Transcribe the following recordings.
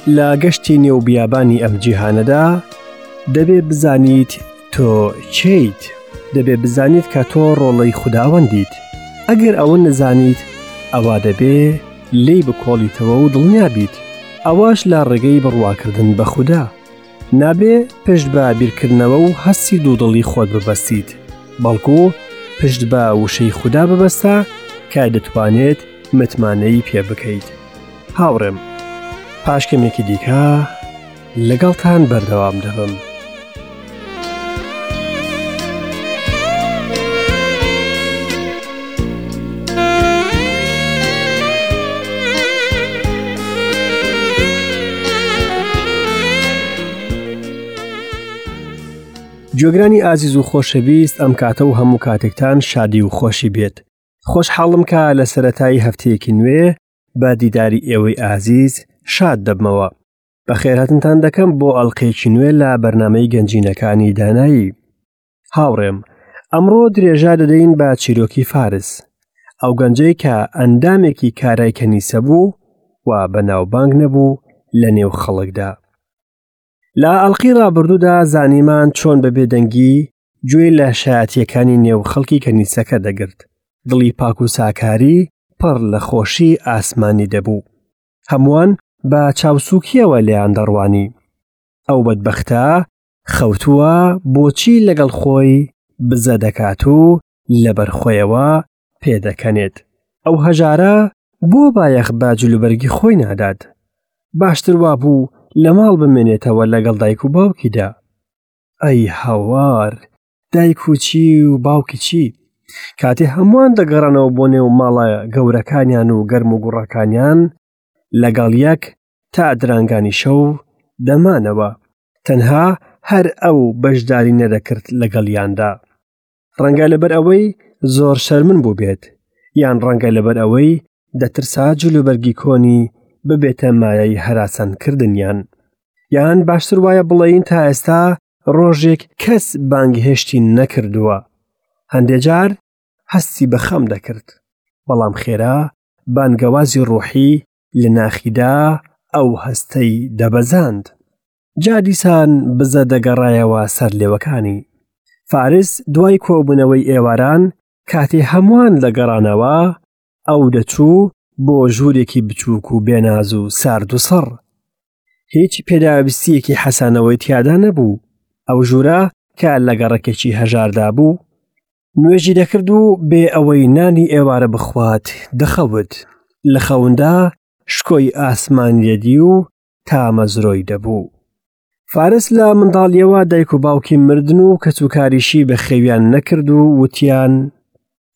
لە گەشتی نێو بیابانی ئەم جیهانەدا دەبێ بزانیت تۆ کێیت دەبێ بزانیت کە تۆ ڕۆڵەی خوداوەندیت ئەگەر ئەوە نەزانیت ئەوا دەبێ لێی بکۆڵیتەوە و دڵنیا بیت ئەوەش لە ڕێگەی بڕواکردن بە خودا نابێ پشت بە بیرکردنەوە و هەستی دوودڵی خۆت ببەستیت بەڵکو پشت بە وشەی خودا ببەستە کە دەتوانێت متمانەی پێ بکەیت هاوڕێم پاش کەمێکی دیکە لەگەڵتان بەردەوام دەبم. گوێگرانی ئازیز و خۆشەویست ئەم کاتە و هەموو کاتێکتان شادی و خۆشی بێت خۆشحاڵم کە لە سەتایی هەفتەیەکی نوێ بە دیداری ئێوەی ئازیز شاد دەبمەوە بەخێرهاتنتان دەکەم بۆ ئەڵلقەیەکی نوێ لە بەرنمەی گەنجینەکانی دانایی هاوڕێم ئەمڕۆ درێژە دەدەین بە چیرۆکی فارس ئەو گەنجەی کە ئەندامێکی کارای کەنیسە بوو و بەناوبانگ نەبوو لە نێو خەڵکدا لە ئەڵلقی ڕابردوودا زانیمان چۆن بە بێدەنگی گوێی لە شایەتیەکانی نێو خەڵکی کەنیسەکە دەگرت دڵی پاک و ساکاری پڕ لە خۆشی ئاسمانی دەبوو هەمووان بە چاوسوکیەوە لێیان دەڕوانی ئەو بەدبەختە خەوتووە بۆچی لەگەڵ خۆی بزە دەکات و لەبەر خۆیەوە پێدەکەنێت ئەو هەژارە بۆ بایەخ بە جلوبەرگی خۆی نادات باشتر وابوو لە ماڵ بمێنێتەوە لەگەڵ دایک و باوکیدا ئەی هاوار دایک و چی و باوکی چی کاتێ هەمووان دەگەڕانەوە بۆ نێو ماڵە گەورەکانیان و گەرم و گوڕەکانیان لەگەڵ یەک تا درانگانی شەو دەمانەوە تەنها هەر ئەو بەشداری نەدەکرد لەگەڵیاندا ڕەنگە لەبەر ئەوەی زۆر شەرمن بوو بێت یان ڕەنگە لەبەر ئەوەی دەترسا جلوبەرگی کۆنی ببێتە مایەی هەراسانکردنیان یان باشتر وایە بڵێین تا ئێستا ڕۆژێک کەس بانگهێشتی نەکردووە هەندێ جار هەستی بە خەم دەکرد بەڵام خێرا بانگەوازی ڕۆحی لە ناخیدا ئەو هەستەی دەبەزاند جا دیسان بزە دەگەڕایەوە سەر لێوەکانی فارس دوای کۆبوونەوەی ئێواران کاتێ هەمووان دەگەڕانەوە ئەو دەچوو بۆ ژوورێکی بچووک و بێناز و سارد و سڕ هیچ پێداویستیەکی حەسانەوەی تیادا نەبوو ئەو ژوورە کە لە گەڕەکێکی هەژاردا بوو نوێژی دەکرد و بێ ئەوەی نانی ئێوارە بخوات دەخەوت لە خەوندا شکۆی ئاسمانی دەدی و تامەزرۆی دەبوو. فارس لە منداڵیەوە دایک و باوکی مردن و کەسوکاریشی بەخێویان نەکرد و وتیان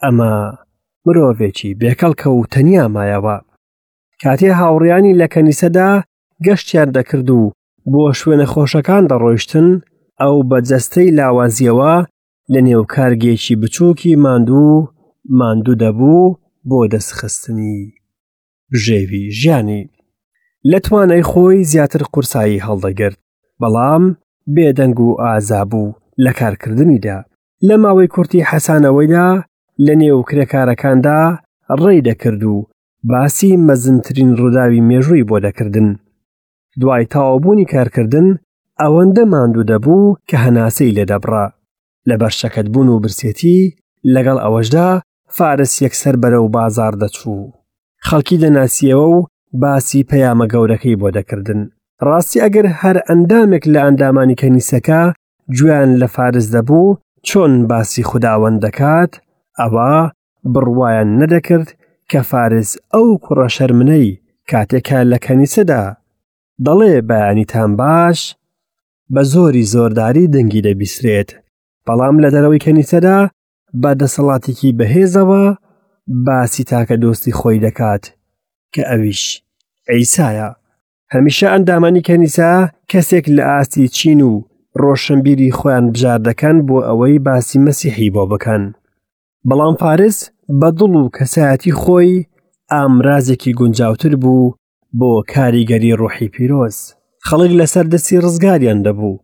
ئەمە مرۆڤێکی بێکەڵکە و تەنیا مایەوە. کاتێ هاوڕیانی لە کەنیسەدا گەشتیان دەکرد و بۆ شوێنە خۆشەکان دەڕۆیشتن ئەو بە جەستەی لاوازیەوە لە نێو کارگێکی بچووکی ماندوو ماندوو دەبوو بۆ دەستخستنی بژێوی ژیانی لە توانای خۆی زیاتر قورسایی هەڵدەگرت بەڵام بێدەنگ و ئازا بوو لە کارکردنیدا لە ماوەی کورتی حەسانەوەیدا لە نێو کرێکارەکاندا ڕێی دەکرد و باسی مەزنترین ڕووداوی مێژووی بۆ دەکردن دوای تەواوبوونی کارکردن ئەوەندە ماندوو دەبوو کە هەناسەی لێدەبڕا لەبەر شەکەتبوون و برسێتی لەگەڵ ئەوەشدا فارس یەکسەر بەرەو بازاڕ دەچوو خەڵکی دەناسیەوە و باسی پەیامە گەورەکەی بۆ دەکردن ڕاستی ئەگەر هەر ئەندامێک لە ئەندامانی کەنیسەکە گوێیان لە فارس دەبوو چۆن باسی خوداوەند دەکات ئەوە بڕوایان نەدەکرد کە فارس ئەو کوڕە شەرمنەی کاتێکە لە کەنیسەدا دەڵێ بەیانیتان باش بە زۆری زۆرداری دەنگی دەبیسرێت بەڵام لە دەرەوەی کەنیسەدا بە دەسەڵاتێکی بەهێزەوە باسی تاکە دۆستی خۆی دەکات کە ئەویش عیسایە هەمیشە ئەندامانی کەنیسە کەسێک لە ئاستی چین و ڕۆشنبیری خۆیان بژار دەکەن بۆ ئەوەی باسی مەسیحی بۆ بکەن بەڵام فارس بە دڵ و کەسایەتی خۆی ئامرازێکی گونجاوتر بوو بۆ کاریگەری ڕۆحی پیرۆز خەڵک لەسەر دەستی ڕزگاریان دەبوو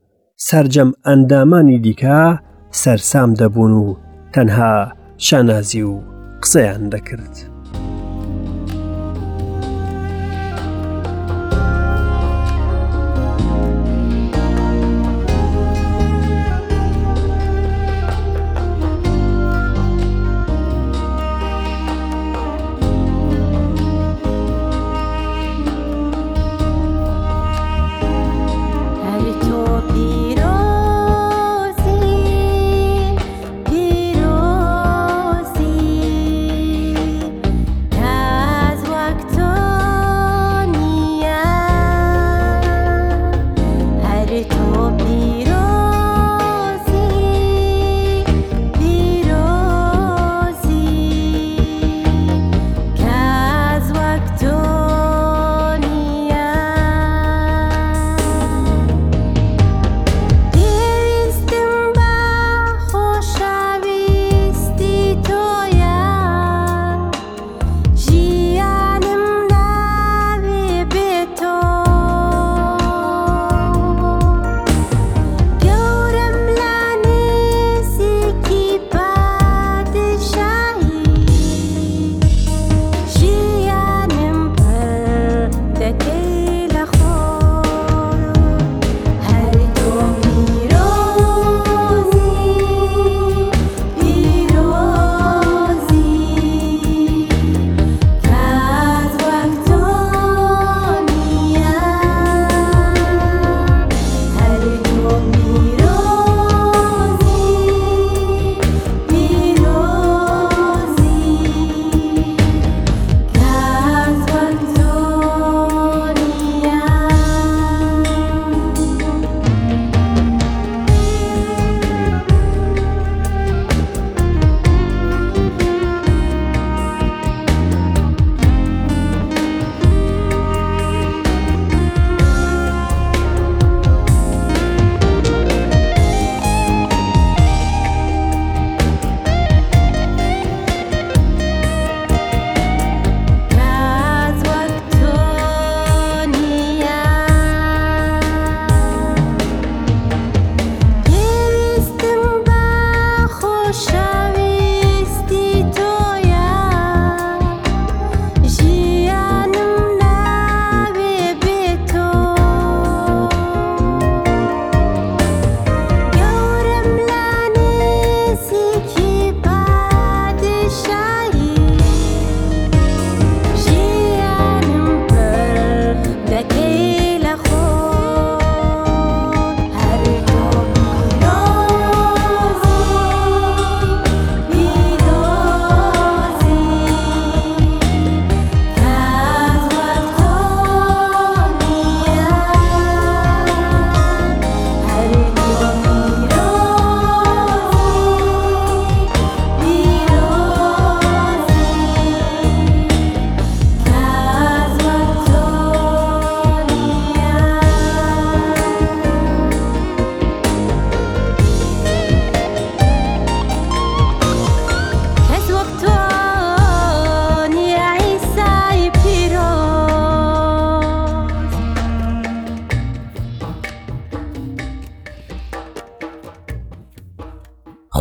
سەرجەم ئەندامانی دیکە سەرسام دەبوون و تەنها شانازی و قسەیان دەکرد.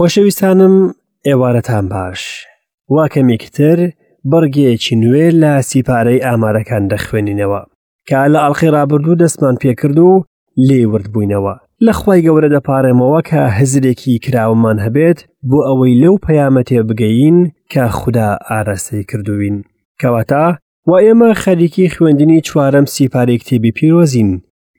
خۆشەویستانم ئێوارەتان باش وا کەمێکتر بڕگەیەکی نوێ لە سیپارەی ئامارەکان دەخوێنینەوە کە لە ئەڵلقەی ڕابردوو دەستمان پێکرد و لێی ورد بووینەوە لە خوای گەورە دەپارێمەوە کە هزرێکی کراوەمان هەبێت بۆ ئەوەی لەو پەیامە تێبگەین کە خودا ئاراستەی کردووین کەواتە و ئێمە خەریکی خوێندنی چوارەم سیپارەی کتێبی پیرۆزین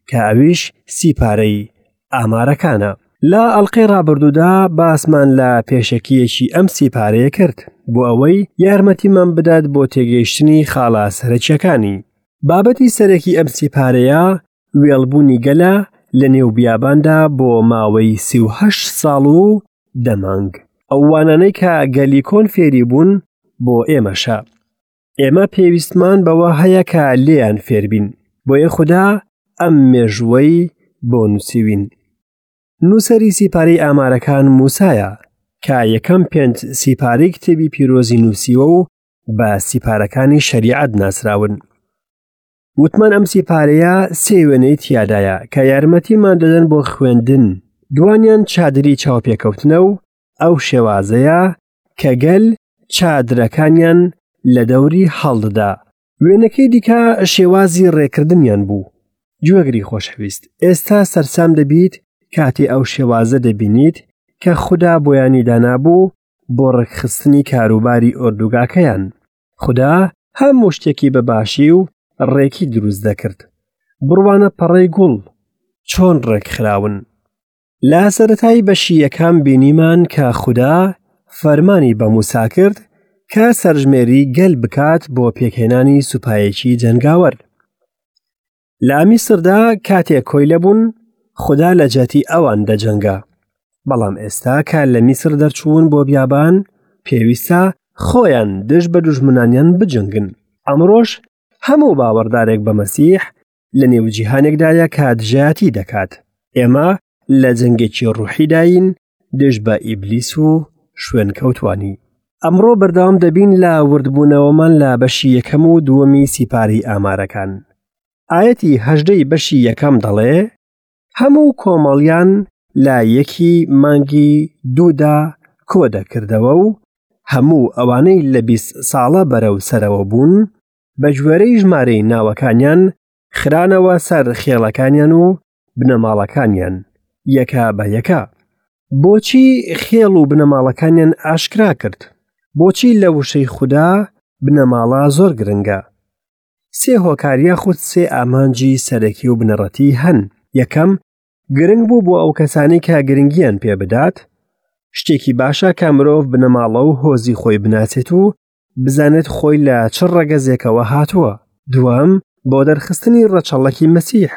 کە ئەویش سیپارەی ئامارەکانە. لە ئەڵلقەی ڕابردوودا باسمان لە پێشەکیەکی ئەم سیپارەیە کرد بۆ ئەوەی یارمەتیمان بدات بۆ تێگەیشتنی خاڵە سەرەکیەکانی. بابەتی سەرەکی ئەم سیپارەیە وێڵبوونی گەلە لە نێو بیاباندا بۆ ماوەی 38 ساڵ و دە مانگ. ئەو وانانەی کە گەلی کۆن فێری بوون بۆ ئێمەشە. ئێمە پێویستمان بەوە هەیە کە لێیان فێربین بۆیە خودا ئەم مێژووەی بۆ نووسیوین نووسەری سیپارەی ئامارەکان موسایە کە یەکەم پێنج سیپارەی کتێبی پیرۆزی نووسیوە و بە سیپارەکانی شەریعەت ناسراون وتمان ئەم سیپارەیە سێ وێنەی تیادایە کە یارمەتیمان دەدەن بۆ خوێندن دوانیان چادری چاوپێکەوتنە و ئەو شێوازەیە کە گەل چادرەکانیان لە دەوری هەڵدەدا. وێنەکەی دیکە شێوازی ڕێکردنیان بوو. گوێگری خۆشەویست، ئێستا سەرسام دەبیت کاتێ ئەو شێوازە دەبینیت کە خودا بۆیانی دانابوو بۆ ڕێکخستنی کاروباری ئۆردوگاکەیان. خودا هەموو شتێکی بە باشی و ڕێکی دروست دەکرد. بڕوانە پەڕەی گوڵ چۆن ڕێکخراون. لە سەرەتای بەشی یەکەم بینیمان کە خودا فەرمانی بە موسا کرد کە سەرژمێری گەل بکات بۆ پێکهێنانی سوپایەکی جەنگاوەر. لە میسردا کاتێک کۆیلە بوون خودا لە جیاتی ئەوان دەجەنگا. بەڵام ئێستا کە لە میسر دەرچوون بۆ بیابان پێویستە خۆیان دژ بە دوژمنانیان بجەنگن. ئەمڕۆش هەموو باوەڕدارێک بە مەسیح لە نێو جیهانێکدایە کە دژایەتی دەکات ئێمە لە جەنگێکی ڕوحیداین دژ بە ئیبلیس و شوێنکەوتوانی ئەمڕۆ بەردەوام دەبین لە وردبوونەوەمان لە بەشی یەکەم و دووەمی سیپاری ئامارەکان ئاەتی هەژدەی بەشی یەکەم دەڵێ هەموو کۆمەڵیان لە یەکی مانگی دوودا کۆ دەکردەوە و هەموو ئەوانەی لە 20 ساڵە بەرەو سەرەوە بوون بە گوێرەی ژمارەی ناوەکانیان خرانەوە سەر خێڵەکانیان و بنەماڵەکانیان یەکە بە یەکە. بۆچی خێڵ و بنەماڵەکانیان ئاشکرا کرد؟ بۆچی لە وشەی خودا بنەماڵە زۆر گرنگە؟ سێ هۆکار یاخود سێ ئامانجی سەرەکی و بنەڕەتی هەن. یەکەم، گرنگ بوو بۆ ئەو کەسانی کە گرنگیان پێ بدات. شتێکی باشە کە مرۆڤ بنەماڵە و هۆزی خۆی بناسێت و بزانێت خۆی لە چ ڕەگەزێکەوە هاتووە. دووەم، بۆ دەرخستنی ڕەچەڵەکی مەسیح.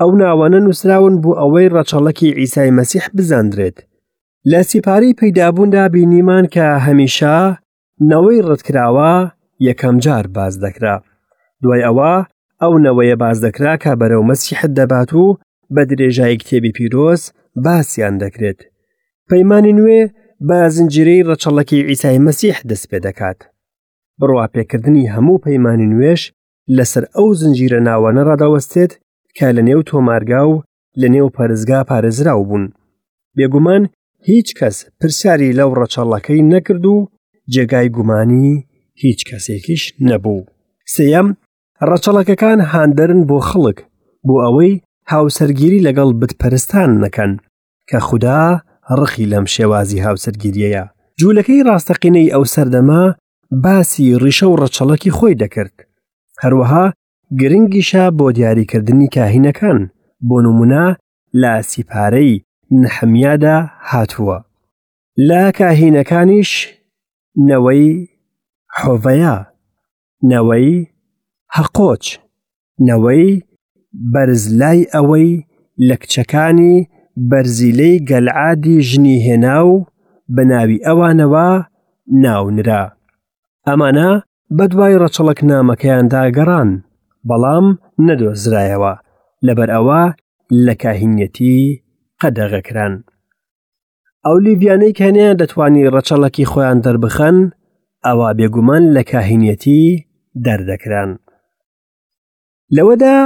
ئەو ناوانە نووسراون بۆ ئەوەی ڕەچەڵەکی عیسای مەسیح بزاندرێت. لە سیپارەی پەیدابووندا بینیمان کە هەمیشە نەوەی ڕەتکراوە یەکەم جار باس دەکرا. دوای ئەوە ئەو نەوەیە باس دەکرا کە بەرەو مەسیحت دەبات و بە درێژایی کتێبی پیرۆز باسیان دەکرێت. پەیمانی نوێ بە زنجیرەی ڕەچەڵەکی عیسای مەسیح دەست پێ دەکات. بڕواپێکردنی هەموو پەیمانی نوێش لەسەر ئەو زنجیرە ناوانە ڕادەوەستێت کە لە نێو تۆمارگا و لە نێو پەرستگا پارێزراو بوون. بێگومان هیچ کەس پرسیاری لەو ڕەچەڵەکەی نەکرد و جێگای گومانی هیچ کەسێکیش نەبوو. سێیەم، ڕەچەڵەکەکان هاندەرن بۆ خەڵک بۆ ئەوەی هاوسەرگیری لەگەڵ بتپەرستان نەکەن. کە خودا ڕقی لەم شێوازی هاوسەرگیریەیە. جوولەکەی ڕاستەقینەی ئەو سەردەمە باسی ڕیشە و ڕەچەڵەکی خۆی دەکرد. هەروەها گرنگیشە بۆ دیاریکردنی کاهینەکان، بۆ نمونە لە سیپارەی نەحەمیادا هاتووە. لە کاهینەکانیش نەوەی حۆڤەیا، نەوەی هەقۆچ، نەوەی بەرزلای ئەوەی لە کچەکانی بەرزیلەی گەلعادی ژنی هێنا و بە ناوی ئەوانەوە ناونرا. ئەمانە بەدوای ڕەچەڵەکنامەکەیاندا گەڕان، بەڵام نەدۆزرایەوە، لەبەر ئەوە لە کاهینیەتی قەدەغە کران. ئەو لیڤیانەی کە نەیان دەتوانی ڕەچەڵەکی خۆیان دەربخەن، ئەوا بێگومان لە کاهینیەتی دەردەکران. لەوەدا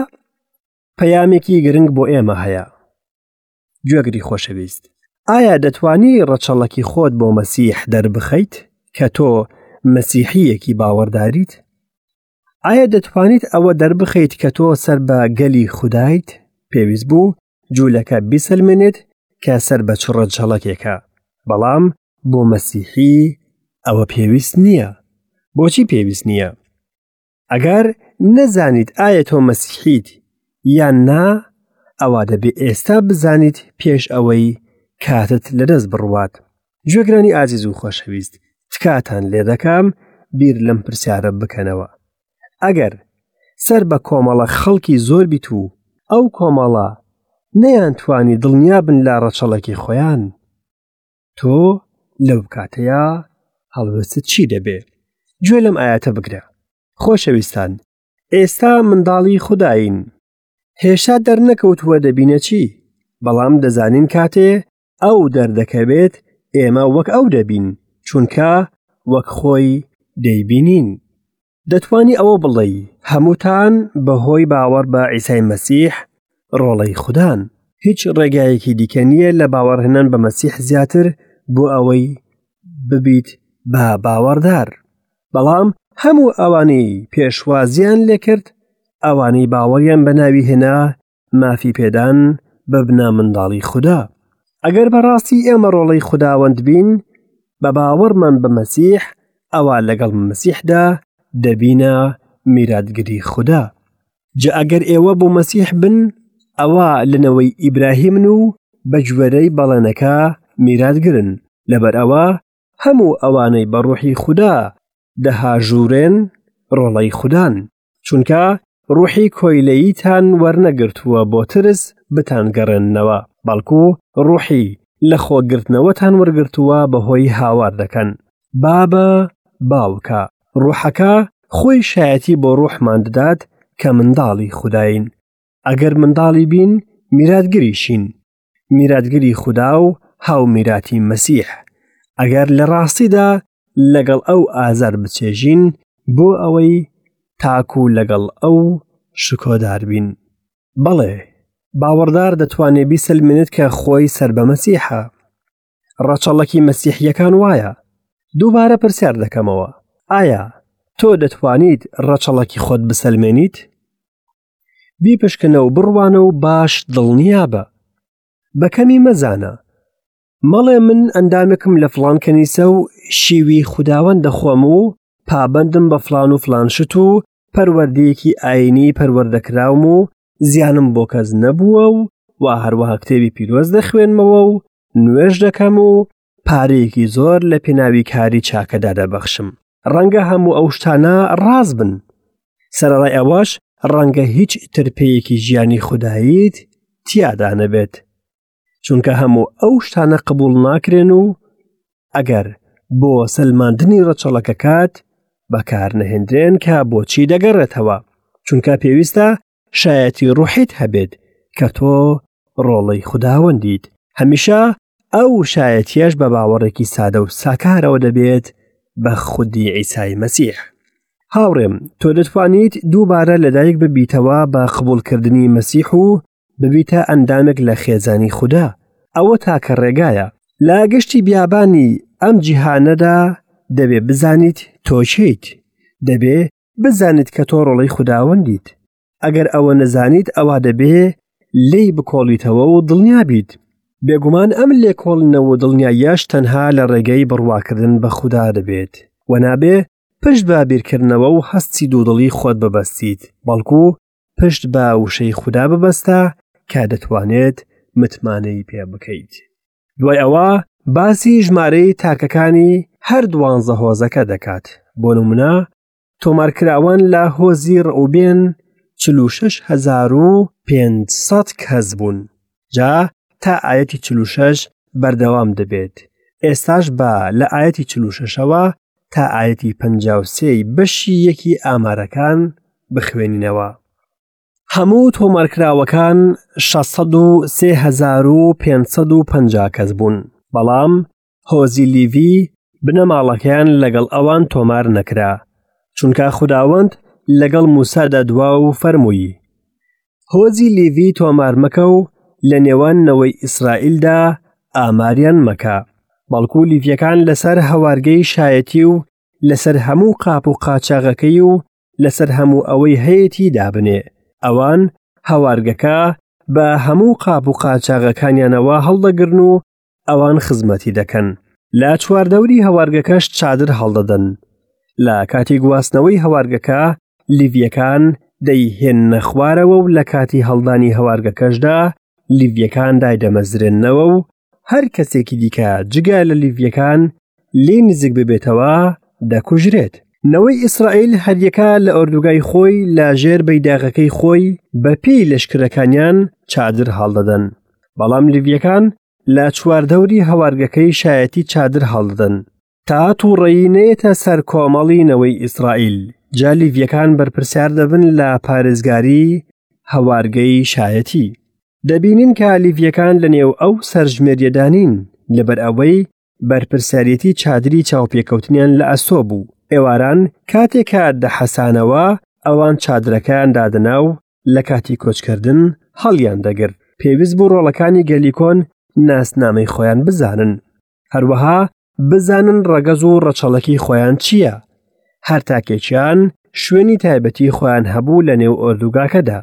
پەیامێکی گرنگ بۆ ئێمە هەیە. گوێگری خۆشەویست. ئایا دەتوانی ڕەچەڵەکی خۆت بۆ مەسیح دەربخەیت کە تۆ مەسیحییەکی باوەڕداریت؟ ئایا دەتوانیت ئەوە دەربخەیت کە تۆ سەر بە گەلی خودایت؟ پێویست بوو جوولەکە بیسەلمێنێت کە سەر بە چ ڕەچەڵەکێکە، بەڵام بۆ مەسیحی ئەوە پێویست نییە. بۆچی پێویست نییە؟ ئەگەر نەزانیت ئایا تۆ مەسیحیت یان نا، ئەوا دەبێ ئێستا بزانیت پێش ئەوەی کاتت لەدەست بڕوات. گوێگرانی ئازیز و خۆشەویست، تکاتان لێ دەکەم بیر لەم پرسیارە بکەنەوە. ئەگەر سەر بە کۆمەڵە خەڵکی زۆر بیت و ئەو کۆمەڵە نەیانتوانی دڵنیا بن لە ڕەچەڵەکی خۆیان، تۆ لەو کاتەیا هەڵوێستت چی دەبێ؟ گوێ لەم ئایەتە بگرە. خۆشەویستان، ئێستا منداڵی خودایین. هێشتا دەرنەکەوتووە دەبینە چی، بەڵام دەزانین کاتێ ئەو دەردەکەوێت ئێمە وەک ئەو دەبین، چونکە وەک خۆی دەیبینین. دەتوانی ئەوە بڵێی هەمووتان بەهۆی باوەڕ بە عیسای مەسیح ڕۆڵەی خودان. هیچ ڕێگایەکی دیکە نییە لە باوەڕهێنان بە مەسیح زیاتر بۆ ئەوەی ببیت بە باوەڕدار. بەڵام هەموو ئەوانەی پێشوازیان لێکرد، ئەوانەی باوەڕیان بە ناوی هێنا، مافی پێدان ببنە منداڵی خودا. ئەگەر بەڕاستی ئێمە ڕۆڵەی خوداوەند بین، بە باوەڕمان بە مەسیح، ئەوا لەگەڵ مەسیحدا دەبینە میراتگری خودا. جا ئەگەر ئێوە بۆ مەسیح بن، ئەوا لە نەوەی ئیبراهیمن و بە گوێرەی بەڵێنەکە میراتگرن. لەبەر ئەوە هەموو ئەوانەی بە ڕۆحی خودا دەهاژوورێن، ڕۆڵەی خودان. چونکە ڕوحی کۆیلەییتان وەرنەگرتووە بۆ ترس بتانگەڕێننەوە، بەڵکو ڕوحی لە خۆگرتنەوەتان وەرگرتووە بەهۆی هاوار دەکەن، بابە، باوکە. ڕوحەکە خۆی شایەتی بۆ ڕوحمان دەدات کە منداڵی خوداین. ئەگەر منداڵی بین، میراتگریشین، میراتگری خودا و هاومیراتی مەسیح، ئەگەر لە ڕاستیدا لەگەڵ ئەو ئازار بچێژین بۆ ئەوەی تاکو لەگەڵ ئەو شکۆدار بین. بەڵێ، باوەڕدار دەتوانێ بیسەلمێنێت کە خۆی سەر بە مەسیحە. ڕەچەڵەکی مەسیحییەکان وایە. دووبارە پرسیار دەکەمەوە، ئایا تۆ دەتوانیت ڕەچەڵەکی خۆت بسەلمێنیت؟ بیپشکنە و بڕوانە و باش دڵنیابە. بە کەمی مەزانە. مەڵێ من ئەندامێکم لە فڵان کەنیسە و شیوی خوداوەند دەخۆم و پابەندم بە فڵان و فڵان شت و پەروەردەیەکی ئاینی پەروەردەکراوم و زیانم بۆ کەس نەبووە و وا هەروەها کتێبی پیرۆز دەخوێنمەوە و نوێژ دەکەم و پارەیەکی زۆر لە پێناوی کاری چاکەدا دەبەخشم. ڕەنگە هەموو ئەو شتانە ڕاست بن. سەرەڕای ئەوەش ڕەنگە هیچ ترپەیەکی ژیانی خوداییت تیادا نەبێت. چونکە هەموو ئەو شتانە قبوڵ ناکرێن و ئەگەر بۆ سەلماندنی ڕەچەڵەکەکات بەکارنەهێندرێن کە بۆچی دەگەڕێتەوە چونکە پێویستە شایەتی ڕوحیت هەبێت کە تۆ ڕۆڵەی خوداوەندیت هەمیشە ئەو شایەتیەش بە باوەڕێکی سادە و ساکارەوە دەبێت بە خودی عیسای مەسیح هاوڕێم تۆ دەتوانیت دووبارە لەدایک ببیتەوە بە قبوڵکردنی مەسیح و ببیتە ئەندامێک لە خێزانی خودا ئەوە تاکە ڕێگایە لە گەشتی بیابانی ئەم جیهانەدا دەبێ بزانیت تۆ کێیت دەبێ بزانیت کە تۆ ڕۆڵەی خوداوەندیت ئەگەر ئەوە نەزانیت ئەوا دەبێ لێی بکۆڵیتەوە و دڵنیا بیت بێگومان ئەم لێکۆڵینەوە و دڵنیاییەش تەنها لە ڕێگەی بڕواکردن بە خودا دەبێت و نابێ پشت بە بیرکردنەوە و هەستی دوودڵی خۆت ببەستیت بەڵکو پشت بە وشەی خودا ببەستە کە دەتوانێت متمانەی پێ بکەیت. دوای ئەوە باسی ژمارەی تاکەکانی هەر دوانزە هۆزەکە دەکات بۆ نمونە تۆمارکراوان لە هۆزی ڕئوبێن 46500 کەس بوون جا تا ئاەتی 46 بەردەوام دەبێت ئێستاش بە لە ئاەتی 46ەوە تا ئاەتی 53 بەشی یەکی ئامارەکان بخوێنینەوە. هەموو تۆمارکراوەکان 603,550 کەس بوون، بەڵام هۆزی لیڤی بنەماڵەکەیان لەگەڵ ئەوان تۆمار نەکرا، چونکە خوداوەند لەگەڵ موسادا دوا و فەرمووی، هۆزی لیڤی تۆمار مەکە و لە نێوان نەوەی ئیسرائیلدا ئاماریان مەکە. بەڵکو لیڤیەکان لەسەر هەوارگەی شایەتی و لەسەر هەموو قاپ و قاچاغەکەی و لەسەر هەموو ئەوەی هەیەتی دابنێ. ئەوان هەوارگەکە بە هەموو قاپ و قاچاغەکانیانەوە هەڵدەگرن و ئەوان خزمەتی دەکەن. لە چواردەوری هەوارگەکەش چادر هەڵدەدەن. لە کاتی گواستنەوەی هەوارگەکە لیڤیەکان دەیهێننە خوارەوە و لە کاتی هەڵدانی هەوارگەکەشدا لیڤیەکان دایدەمەزرێننەوە و هەر کەسێکی دیکە جگە لە لیڤیەکان لێ نزیک ببێتەوە دەکوژرێت. نەوەی ئیسرائیل هەریەکە لە ئۆردوگای خۆی لە ژێر بەیداغەکەی خۆی بە پێی لەشکرەکانیان چادر هەڵدەدەن. بەڵام لیڤیەکان لە چواردەوری هەوارگەکەی شایەتی چادر هەڵدەدەن. تا تووڕەیی نەیەتە سەر کۆمەڵی نەوەی ئیسرائیل، جا لیڤیەکان بەرپرسیار دەبن لە پارێزگاری هەوارگەی شایەتی. دەبینین کە لیڤیەکان لە نێو ئەو سەرژمێریەدا نین، لەبەر ئەوەی بەرپرسیارێتی چادری چاوپێکەوتنیان لە ئەستۆ بوو. ئێواران کاتێک کە دەحەسانەوە، ئەوان چادرەکەیان دادەنا و لە کاتی کۆچکردن هەڵیان دەگرت. پێویست بوو ڕۆڵەکانی گەلی کۆن ناسنامەی خۆیان بزانن. هەروەها بزانن ڕەگەز و ڕەچەڵەکی خۆیان چییە. هەر تاکێکیان شوێنی تایبەتی خۆیان هەبوو لە نێو ئۆردوگاکەدا.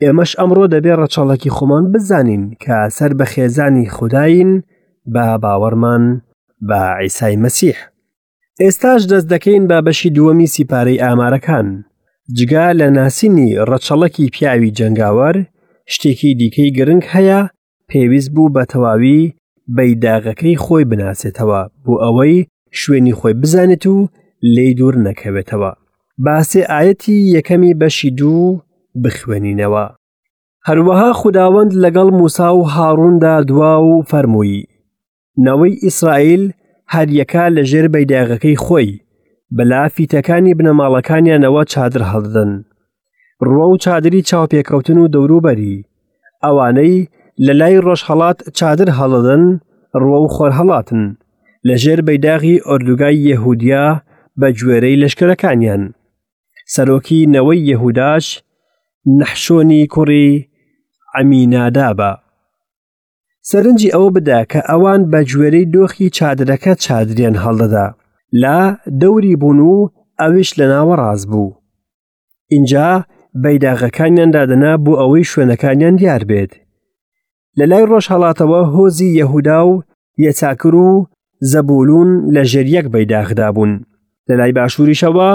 ئێمەش ئەمڕۆ دەبێ ڕەچەڵەکی خۆمان بزانین کە سەر بە خێزانی خودایین بە باوەڕمان بە عیسای مەسیح. ئێستاش دەست دەکەین بە بەشی دووەمی سیپارەی ئامارەکان. جگە لە ناسینی ڕەچەڵەکی پیاوی جەنگاوەر، شتێکی دیکەی گرنگ هەیە پێویست بوو بە تەواوی بەیداغەکەی خۆی بناسێتەوە بۆ ئەوەی شوێنی خۆی بزانێت و لێی دوور نەکەوێتەوە. با سێ ئایەتی یەکەمی بەشی دوو بخوێنینەوە. هەروەها خوداوەند لەگەڵ موسا و هاڕووندا دوا و فەرمووی، نەوەی ئیسرائیل هەریەکە لە ژێر بەیداغەکەی خۆی بە لافیتەکانی بنەماڵەکانیانەوە چادر هەڵدەدەن ڕووە و چادری چاوپێکەوتن و دەوروبەری ئەوانەی لە لای ڕۆژهەڵات چادر هەڵدەدەن ڕووە و خۆرهەڵاتن لە ژێر بەیداغی ئۆردوگای یەهودیا بە گوێرەی لەشکرەکانیان سەرۆکی نەوەی یەهوداش نەحشۆنی کوڕی عەمینادابە. سەرنجی ئەوە بدە کە ئەوان بە گوێرەی دۆخی چادرەکە چادریان هەڵدەدا لە دەوری بوون و ئەویش لە ناوەڕاست بوو. ئینجا بەیداغەکانیان دادەنا بۆ ئەوەی شوێنەکانیان دیار بێت. لە لای ڕۆژهەڵاتەوە هۆزی یەهودا و یەچاکر و زەبولون لە ژێر یەک بەیداغدا بوون. لە لای باشووریشەوە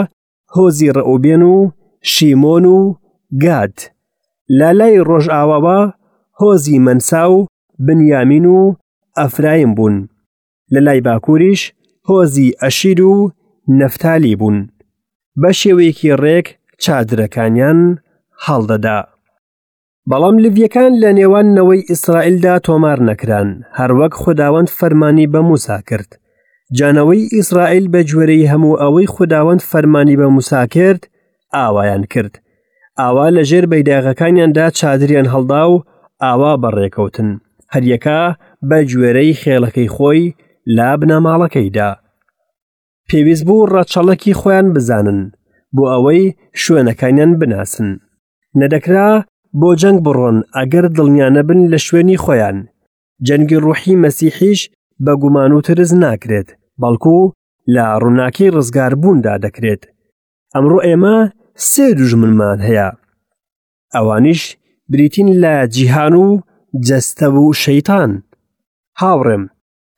هۆزی ڕەئوبێن و شیمۆن و گاد. لە لای ڕۆژئاواوە هۆزی مەنسا و بنیامین و ئەفرایم بوون. لە لای باکووریش هۆزی ئەشیر و نەفتالی بوون. بە شێوەیەکی ڕێک چادرەکانیان هەڵدەدا. بەڵام لڤیەکان لە نێوان نەوەی ئیسرائیلدا تۆمار نەکران، هەروەک خوداوەند فەرمانی بە موسا کرد. جا نەوەی ئیسرائیل بە گوێرەی هەموو ئەوەی خوداوەند فەرمانی بە موسا کرد، ئاوایان کرد. ئاوا لە ژێر بەیداغەکانیاندا چادریان هەڵدا و ئاوا بەڕێکەوتن، هەریەکە بە گوێرەی خێڵەکەی خۆی لە بنەماڵەکەیدا. پێویست بوو ڕەچەڵەکی خۆیان بزانن بۆ ئەوەی شوێنەکانیان بناسن. نەدەکرا بۆ جەنگ بڕۆن ئەگەر دڵنیا نەبن لە شوێنی خۆیان. جەنگی ڕوحی مەسیحیش بە گومان و ترس ناکرێت، بەڵکو لە ڕووناکی ڕزگاربووندا دەکرێت. ئەمڕۆ ئێمە سێ دوژمنمان هەیە. ئەوانیش بریتین لە جیهان و جەستە و شەیتان. هاوڕێم،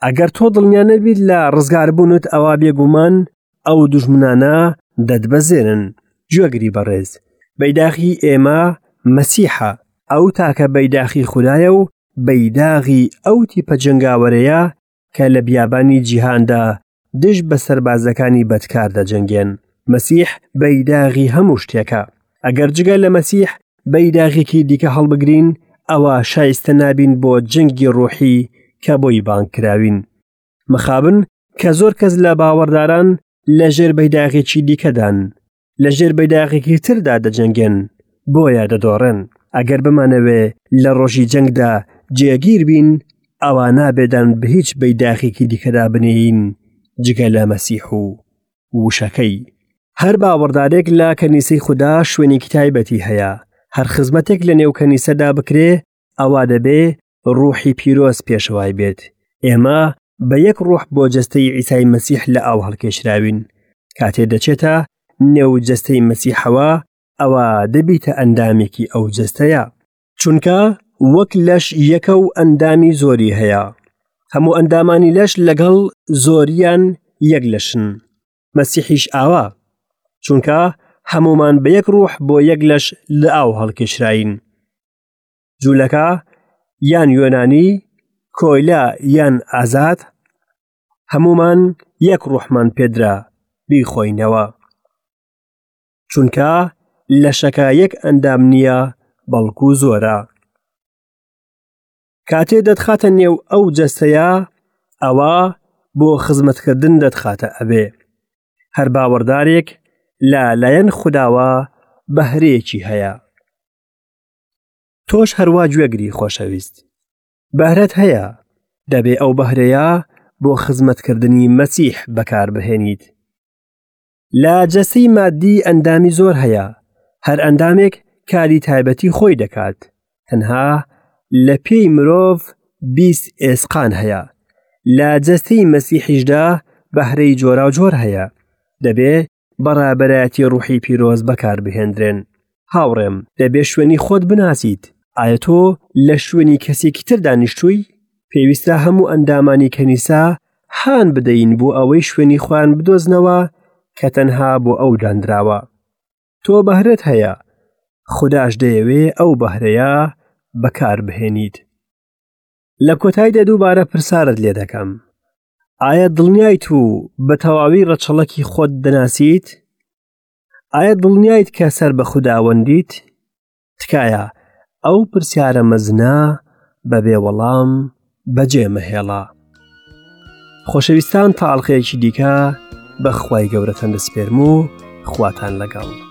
ئەگەر تۆ دڵنیا نەبیت لە ڕزگاربوونت ئەوا بێگومان ئەو دوژمنانە دەتبەزێنن. گوێگری بەڕێز، بەیداخی ئێمە مەسیحە، ئەو تاکە بەیداخی خودایە و بەیداغی ئەو تیپە جەنگاوەرەیە کە لە بیابانی جیهاندا دژ بە سەربازەکانی بەدکار دەجەنگێن. مەسیح بەیداغی هەموو شتێکە. ئەگەر جگە لە مەسیح بەیداغێکی دیکە هەڵبگرین، ئەوا شایستە نابین بۆ جەنگی ڕۆحی کە بۆی بانگ کراوین. مەخابن کە زۆر کەس لە باوەڕداران لە ژێر بەیداغێکی دیکەدان، لە ژێر بەیداغێکی تردا دەجەنگێن، بۆیە دەدۆڕێن. ئەگەر بمانەوێ لە ڕۆژی جەنگدا جێگیر بین، ئەوا نابێ دان بە هیچ بەیداخێکی دیکەدا بنێین جگە لە مەسیح و وشەکەی. هەر باوەڕدارێک لە کەنیسەی خودا شوێنێکی تایبەتی هەیە، هەر خزمەتێک لە نێو کەنیسەدا بکرێ ئەوا دەبێ ڕوحی پیرۆز پێشەوای بێت. ئێمە بە یەک ڕۆح بۆ جەستەی عیسای مەسیح لە ئاو هەڵکێشراوین. کاتێ دەچێتە نێو جەستەی مەسیحەوە، ئەوە دەبیتە ئەندامێکی ئەو جەستەیە. چونکە وەک لەش یەکە و ئەندامی زۆری هەیە. هەموو ئەندامانی لەش لەگەڵ زۆریان یەک لەشن. مەسیحیش ئاوا. چونکە هەمومان بە یەک ڕوح بۆ یەک لەش لە ئاو هەڵکێشراین. جوولەکە یان یۆنانی، کۆیلە یان ئازاد، هەمومان یەک ڕوحمان پێدرا بیخۆینەوە. چونکە لەشەکە یەک ئەندام نییە بەڵکو زۆرە. کاتێ دەتخاتە نێو ئەو جەستەیە ئەوە بۆ خزمەتکردن دەتخاتە ئەوێ. هەر باوەڕدارێک لە لایەن خوداوە بەهرەیەکی هەیە. تۆش هەروا گوێگری خۆشەویست. بەهرەت هەیە، دەبێ ئەو بەهرەیە بۆ خزمەتکردنی مەسیح بەکاربهێنیت. لە جەستەی مادی ئەندامی زۆر هەیە، هەر ئەندامێک کاری تایبەتی خۆی دەکات، تەنها لە پێی مرۆڤ 20 ئێسقان هەیە، لە جەستەی مەسیحیشدا بەهرەی جۆراوجۆر هەیە، دەبێ بە ڕابەرایەتی ڕوحی پیرۆز بەکاربهێندرێن. هاوڕێم، دەبێ شوێنی خۆت بناسیت، ئایا تۆ لە شوێنی کەسێکی تر دانیشتووی؟ پێویستە هەموو ئەندامانی کەنیسە هان بدەین بۆ ئەوەی شوێنی خۆیان بدۆزنەوە کە تەنها بۆ ئەو دانراوە. تۆ بەهرەت هەیە، خوداش دەیەوێ ئەو بەهرەیە بەکاربهێنیت. لە کۆتاییدا دووبارە پرسارت لێ دەکەم، ئایا دڵنیایت و بە تەواوی ڕەچەڵەکی خۆت دەناسیت؟ ئایا دڵنیایت کە سەر بە خوداوەندیت؟ تکایە ئەو پرسیارە مەزنە بەبێ وەڵام بەجێ مەهێڵە. خۆشەویستان تا ئەڵقەیەکی دیکە بە خوای گەورەتان دەسپێرم و خواتان لەگەڵ.